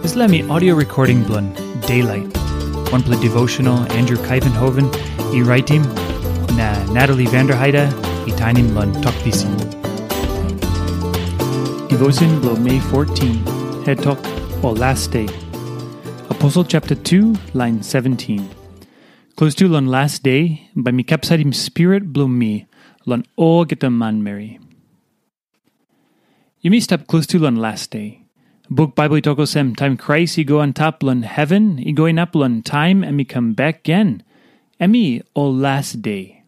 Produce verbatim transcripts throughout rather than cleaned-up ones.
Dispela mi audio recording bilong Daylight, wanpela devotional Andrew Kaivenhoven i raitim, na Natalie Vanderheide i tainim long Tok Pisin. Devotion bilong Mei fourteen, head tok, o last day. Apostle chapter two, line seventeen. Klostu long last day, bai mi kapsaitim spirit bilong mi long olgeta manmeri. Yumi stap klostu long last day. Buk Bible i tok olsem, taim Krais i go antap long heven, i go inap long taim em i kam bek gen, em i ol last day.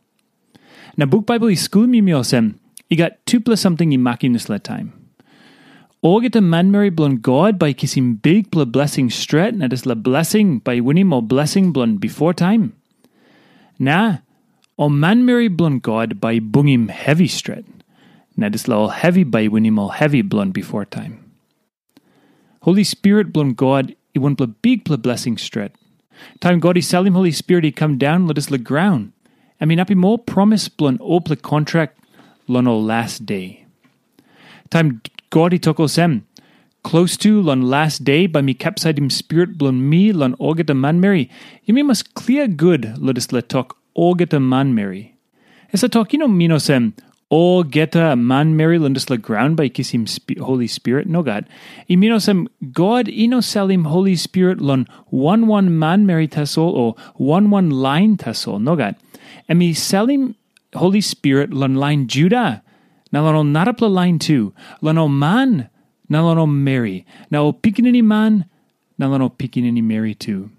Na buk Bible i skulim yumi olsem, i gat tupela samting i makim dispela taim. Olgeta manmeri bilong God bai i kisim bikpela blesing stret, na dispela blesing bai i winim ol blesing bilong bifor taim. Na ol manmeri bilong God bai i bungim hevi stret, na dispela ol hevi bai i winim ol hevi bilong bifor taim. Holi Spirit bilong God i wanpela bikpela blesing stret. Taim God i salim Holi Spirit i kam daun long dispela graun, em inapim ol promis bilong olpela kontrak long ol last day. Taim God i tok olsem, klostu long last day bai mi kapsaitim spirit bilong mi long olgeta manmeri, yumi mas klia gut long dispela tok olgeta manmeri. Dispela tok i no min olsem, olgeta manmeri long dispela graun bai i kisim spi- Holi Spirit, nogat. I min olsem, God i no salim Holi Spirit long wan wan manmeri tasol o wan wan lain tasol, nogat. Em i salim Holi Spirit long lain Juda, na long ol narapela lain tu, long ol man, na long ol meri, na ol pikinini man, na long ol pikinini meri tu.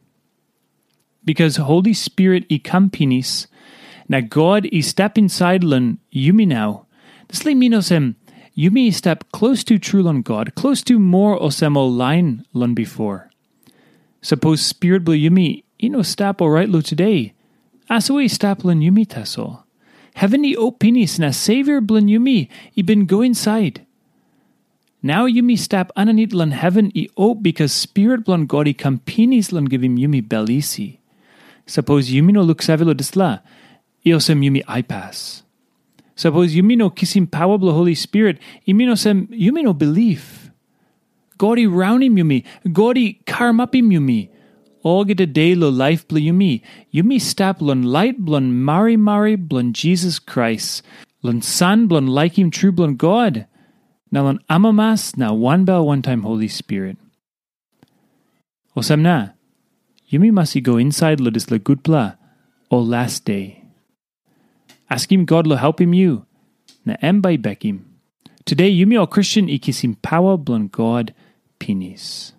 Bikas Holi Spirit i kam pinis, na God i stap insait long yumi nau, dispela i min olsem, yumi i stap klostu tru long God, klostu moa olsem ol lain long bifor. Sapos spirit bilong yumi i no stap orait long tude, asua i stap long yumi tasol. Heven i op pinis na Savior bilong yumi i bin go insait. Nau yumi stap aninit long heven i op bikas Spirit bilong God i kam pinis long givim yumi bel isi. Sapos yumi no luksave long dispela, i olsem yumi aipas. Sapos yumi no kisim pawa bilong Holi Spirit, i min olsem yumi no bilip. God i raunim yumi, God i karamapim yumi. Olgeta de long laip bilong yumi, yumi stap long lait bilong marimari bilong Jisas Krais, long san bilong laikim tru bilong God, na long amamas na wanbel wantaim Holi Spirit. Olsem na, yumi mas i go insait long dispela gutpela o last day. Askim God long helpim yu, na em bai i bekim. Tude yumi ol Kristen i kisim pawa bilong God pinis.